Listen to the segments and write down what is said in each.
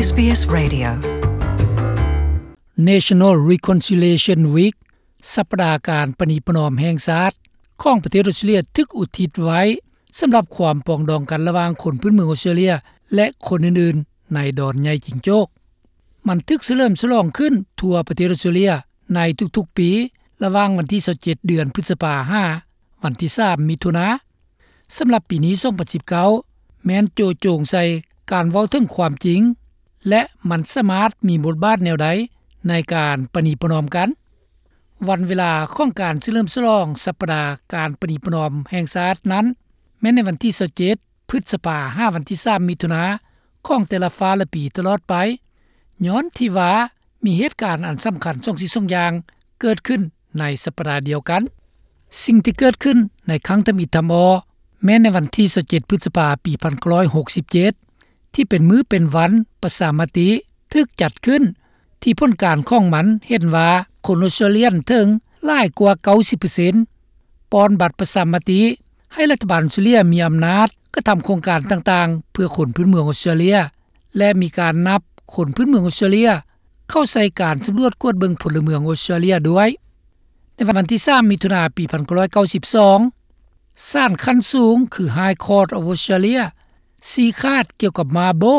SBS Radio National Reconciliation Week ສັບປະດາການປະນີປະນອມແຫ່ງຊາດ ຂອງປະເທດອອສເຕຣເລຍ ຖືກອຸທິດໄວ້ສຳລັບຄວາມປອງດອງກັນລະຫວ່າງຄົນພື້ນເມືອງອອສເຕຣເລຍ ແລະ ຄົນອື່ນໆໃນດອນໃຫຍ່ຈິງໂຈກ. ມັນຖືກສະເຫຼີມສະຫຼອງຂຶ້ນທົ່ວປະເທດອອສເຕຣເລຍໃນທຸກໆປີ ລະຫວ່າງວັນທີຊາວເຈັດ ເດືອນພຶດສະພາ ຫາວັນທີສາມ ມິຖຸນາ. ສຳລັບປີນີ້ ສອງພັນສິບເກົ້າ ແມ່ນໂຈະໂຈງໃສ່ການເວົ້າເຖິງຄວາມຈິງ ແລະ ມັນສາມາດມີບົດບາດແນວໃດໃນການປະນີປະນອມກັນ. ວັນເວລາຂອງການສະເຫຼີມສະຫຼອງສັບປະດາການປະນີປະນອມແຫ່ງຊາດນັ້ນ ແມ່ນໃນວັນທີຊາວເຈັດ ພຶດສະພາ ຫາວັນທີສາມ ມິຖຸນາ ຂອງແຕ່ລະຟ້າລະປີຕະຫຼອດໄປ, ຍ້ອນທີ່ວ່າມີເຫດການອັນສຳຄັນສອງສິ່ງສອງຢ່າງເກີດຂຶ້ນໃນສັບປະດາດຽວກັນ. ສິ່ງທີ່ເກີດຂຶ້ນໃນຄັ້ງທຳອິດທຳອໍ ແມ່ນໃນວັນທີຊາວເຈັດ ພຶດສະພາ ປີພັນເກົ້າຮ້ອຍຫົກສິບເຈັດ ທີ່ເປັນມື້ເປັນວັນປະຊາມະຕິ ຖືກຈັດຂຶ້ນ ທີ່ຜົນການຂອງມັນເຫັນວ່າຄົນອອສເຕຣເລຍເຖິງຫຼາຍກວ່າເກົ້າສິບເປີເຊັນ ປ່ອນບັດປະຊາມະຕິໃຫ້ລັດຖະບານອອສເຕຣເລຍມີອຳນາດກະທຳໂຄງການຕ່າງໆ ເພື່ອຄົນພື້ນເມືອງອອສເຕຣເລຍ ແລະ ມີການນັບຄົນພື້ນເມືອງອອສເຕຣເລຍເຂົ້າໃສ່ການສຳຫຼວດກວດເບິ່ງພົນລະເມືອງອອສເຕຣເລຍດ້ວຍ. ໃນວັນທີສາມ ມິຖຸນາ ປີພັນເກົ້າຮ້ອຍເກົ້າສິບສອງ ສານຂັ້ນສູງ ຄື High Court of Australia ຊີ້ຂາດກ່ຽວກັບ Mabo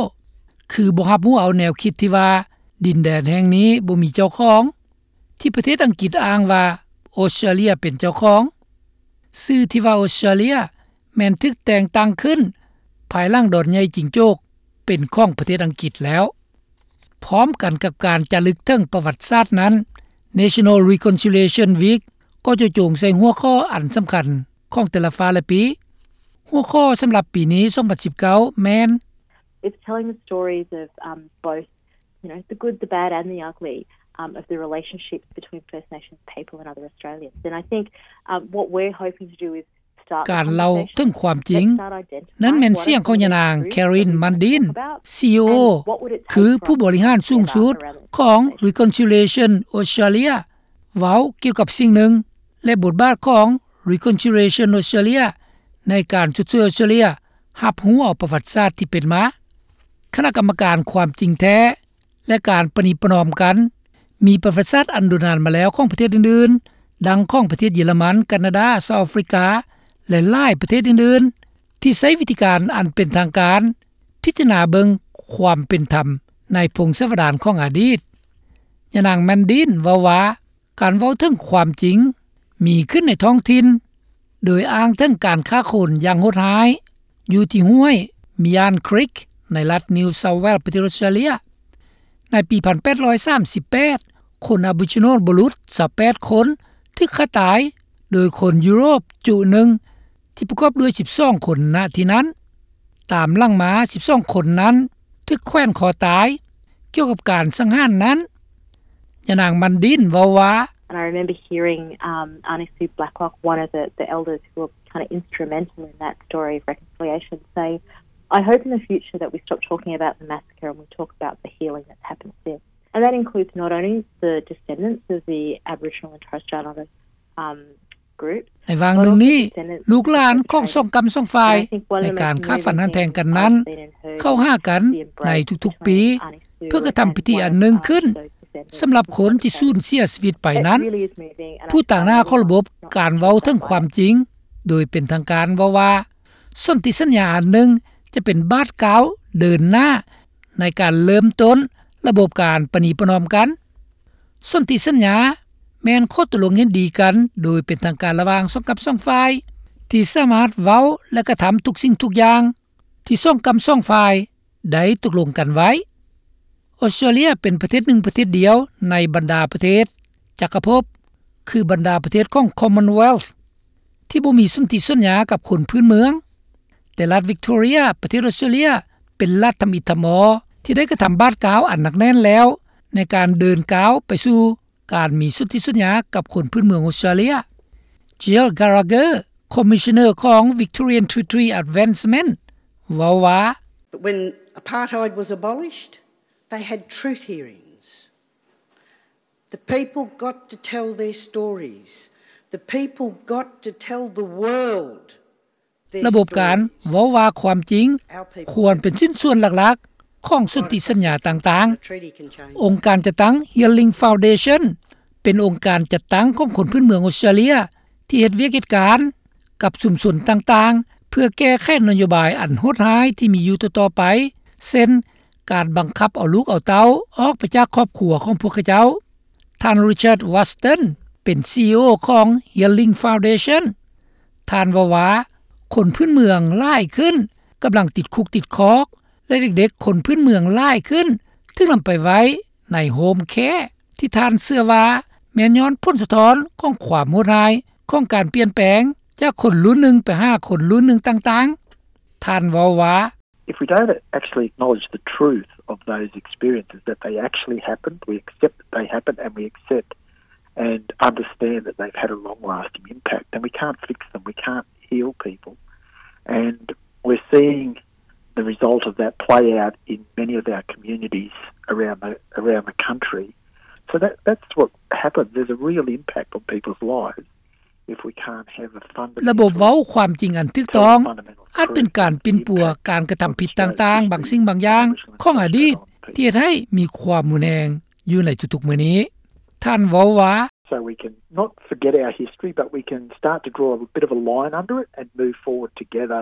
ຄືບໍ່ຮັບຮູ້ເອົາແນວຄິດທີ່ວ່າດິນແດນແຫ່ງນີ້ບໍ່ມີເຈົ້າຂອງ ທີ່ປະເທດອັງກິດອ້າງວ່າອອສເຕຣເລຍເປັນເຈົ້າຂອງ. ຊື່ທີ່ວ່າອອສເຕຣເລຍແມ່ນຖືກແຕ່ງຕັ້ງຂຶ້ນພາຍຫຼັງດອນໃຫຍ່ຈິງໂຈກເປັນຂອງປະເທດອັງກິດແລ້ວ. ພ້ອມກັນກັບການຈາລຶກເຖິງປະຫວັດສາດນັ້ນ, National Reconciliation Week ກໍຈະໂຈງໃສ່ຫົວຂໍ້ອັນສຳຄັນຂອງແຕ່ລະຟ້າລະປີ. ຫົວຂໍ້ສຳລັບປີນີ້ ສອງພັນສິບເກົ້າ ແມ່ນ It's telling the stories of, um, both, you know, the good, the bad and the ugly, um, of the relationships between First Nations people and other Australians. And I think, um, what we're hoping to do is ການເລົ່າເຖິງຄວາມຈິງ. ນັ້ນແມ່ນສຽງຂອງຍານາງ Karen Mundin, CEO ຄືຜູ້ບໍລິຫານສູງສຸດຂອງ Reconciliation Australia ເວົ້າກ່ຽວກັບສິ່ງໜຶ່ງ ແລະ ບົດບາດຂອງ Reconciliation Australia ໃນການຊົດເຊີຍອອສເຕຣເລຍຮັບຮູ້ເອົາປະຫວັດສາດທີ່ເປັນມາ. ຄະນະກຳມະການຄວາມຈິງແທ້ ແລະ ການປະນີປະນອມກັນ ມີປະຫວັດສາດອັນດົນນານມາແລ້ວຂອງປະເທດອື່ນໆ ດັ່ງຂອງປະເທດເຢຍລະມັນ, ການາດາ, ເຊົາອາຟຣິກາ ແລະ ຫຼາຍປະເທດອື່ນໆ ທີ່ໃຊ້ວິທີການອັນເປັນທາງການ ພິຈາລະນາເບິ່ງຄວາມເປັນທຳໃນພົງສາວະດານຂອງອະດີດ. ຍານາງ Mundin ເວົ້າວ່າ ການເວົ້າເຖິງຄວາມຈິງມີຂຶ້ນໃນທ້ອງຖິ່ນ ໂດຍອ້າງເຖິງການຂ້າຄົນຢ່າງໂຫດຮ້າຍ ຢູ່ທີ່ຫ້ວຍ Myan Creek ໃນລັດ New South Wales ປະເທດອອສເຕຣເລຍ. ໃນປີພັນແປດຮ້ອຍສາມສິບແປດ ຄົນ Aboriginal ບຸລຸດຊາວແປດຄົນຖືກຂ້າຕາຍໂດຍຄົນຢູໂຣບຈຸໜຶ່ງ ທີ່ປະກອບດ້ວຍສິບສອງຄົນ ນະທີ່ນັ້ນ. ຕາມຫຼັງມາ ສິບສອງຄົນນັ້ນຖືກແຂວນຄໍຕາຍ. ກ່ຽວກັບການສັງຫານນັ້ນ ຍານາງ Mundin ເວົ້າວ່າ And I remember hearing, um, Aunty Sue Blacklock, one of the, the elders who were kind of instrumental in that story of reconciliation, say, I hope in the future that we stop talking about the massacre and we talk about the healing that's happened since. And that includes not only the descendants of the Aboriginal and Torres Strait Islander, um, ໃນວາງໜຶ່ງນີ້ ລູກຫຼານຂອງສອງກ້ຳສອງຝ່າຍໃນການຂ້າຟັນຫັນແທງກັນນັ້ນ ເຂົ້າຫາກັນໃນທຸກໆປີ ເພື່ອກະທຳພິທີອັນໜຶ່ງຂຶ້ນ ສຳລັບຄົນທີ່ສູນເສຍຊີວິດໄປນັ້ນ. ຜູ້ຕາງໜ້າຂອງລະບົບການເວົ້າເຖິງຄວາມຈິງໂດຍເປັນທາງການເວົ້າວ່າ ສົນທິສັນຍາອັນໜຶ່ງຈະເປັນບາດກ້າວເດີນໜ້າ ໃນການເລີ່ມຕົ້ນລະບົບການປະນີປະນອມກັນ. ສົນທິສັນຍາແມ່ນຂໍ້ຕົກລົງເຫັນດີກັນໂດຍເປັນທາງການລະຫວ່າງສອງກ້ຳສອງຝ່າຍ ທີ່ສາມາດເວົ້າ ແລະ ກະທຳທຸກສິ່ງທຸກຢ່າງທີ່ສອງກ້ຳສອງຝ່າຍໄດ້ຕົກລົງກັນໄວ້. ອອສເຕຣເລຍເປັນປະເທດໜຶ່ງປະເທດດຽວໃນບັນດາປະເທດຈັກກະພົບ ຄືບັນດາປະເທດຂອງ Commonwealth ທີ່ບໍ່ມີສົນທິສັນຍາກັບຄົນພື້ນເມືອງ, ແຕ່ລັດ Victoria ປະເທດອອສເຕຣເລຍ ເປັນລັດທຳອິດທຳອໍທີ່ໄດ້ກະທຳບາດກ້າວອັນໜັກແໜ້ນແລ້ວ ໃນການເດີນກ້າວໄປສູ່ການມີສົນທິສັນຍາກັບຄົນພື້ນເມືອງອອສເຕຣເລຍ. Jill Gallagher, Commissioner ຂອງ Victorian Territory Advancement ເວົ້າວ່າ But when apartheid was abolished, they had truth hearings. The people got to tell their stories. The people got to tell the world their stories. ລະບົບການເວົ້າວ່າຄວາມຈິງຄວນເປັນຊິ້ນສ່ວນຫຼັກ ຂອງສົນທິສັນຍາຕ່າງໆ. ອົງການຈັດຕັ້ງ Healing Foundation ເປັນອົງການຈັດຕັ້ງຂອງຄົນພື້ນເມືອງອອສເຕຣເລັຽ ທີ່ເຮັດວຽກເຮັດການກັບຊຸມຊົນຕ່າງໆ ເພື່ອແກ້ໄຂນະໂຍບາຍອັນໂຫດຮ້າຍທີ່ມີຢູ່ຕໍ່ໆໄປ ເຊັ່ນ ການບັງຄັບເອົາລູກເອົາເຕົ້າອອກໄປຈາກຄອບຄົວຂອງພວກເຂົາເຈົ້າ. ທ່ານ Richard Watson ເປັນ CEO ຂອງ Healing Foundation. ທ່ານເວົ້າວ່າ ຄົນພື້ນເມືອງຫຼາຍຂຶ້ນກຳລັງຕິດຄຸກຕິດຄອກ ແລະ ເດັກໆຄົນພື້ນເມືອງຫຼາຍຂຶ້ນຖືກນຳໄປໄວ້ໃນ home care ທີ່ທ່ານເຊື່ອວ່າແມ່ນຍ້ອນຜົນສະທ້ອນຂອງຄວາມໂຫດຮ້າຍຂອງການປ່ຽນແປງຈາກຄົນລຸ້ນໜຶ່ງໄປຫາຄົນລຸ້ນໜຶ່ງຕ່າງໆ. ທ່ານເວົ້າວ່າ If we don't actually acknowledge the truth of those experiences, that they actually happened, we accept that they happened, and we accept and understand that they've had a long-lasting impact, then we can't fix them, we can't heal people. And we're seeing the result of that play out in many of our communities around the, around the country. So that, that's what happens. There's a real impact on people's lives if we can't have a fundamental ລະບົບເວົ້າຄວາມຈິງອັນຖືກຕ້ອງ ອາດເປັນການປິ່ນປົວການກະທຳຜິດຕ່າງໆ ບາງສິ່ງບາງຢ່າງຂອງອະດີດ ທີ່ເຮັດໃຫ້ມີຄວາມຮຸນແຮງຢູ່ໃນທຸກໆມື້ນີ້. ທ່ານເວົ້າວ່າ So we can not forget our history, but we can start to draw a bit of a line under it and move forward together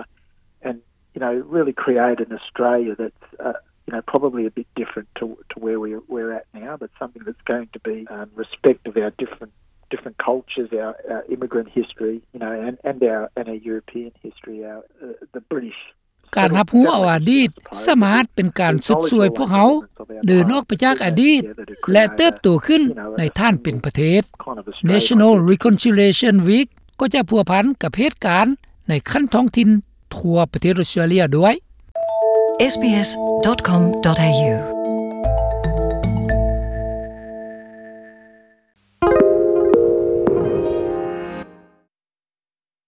and, you know, really create an Australia that's, uh, you know, probably a bit different to, to where we, we're at now, but something that's going to be, um, respect of our different, different cultures, our, our immigrant history, you know, and, and our, and our European history, our, uh, the British ການຮັບຮູ້ເອົາອະດີດສາມາດເປັນການຊຸດຊ່ວຍພວກເຮົາເດີນອອກໄປຈາກອະດີດ ແລະ ເຕີບໂຕຂຶ້ນໃນຖານເປັນປະເທດ. National Reconciliation Week ກໍຈະພົວພັນກັບເຫດການໃນຂັ້ນທ້ອງຖິ່ນທົ່ວປະເທດອອສເຕຣເລັຽດ້ວຍ. sbs.com.au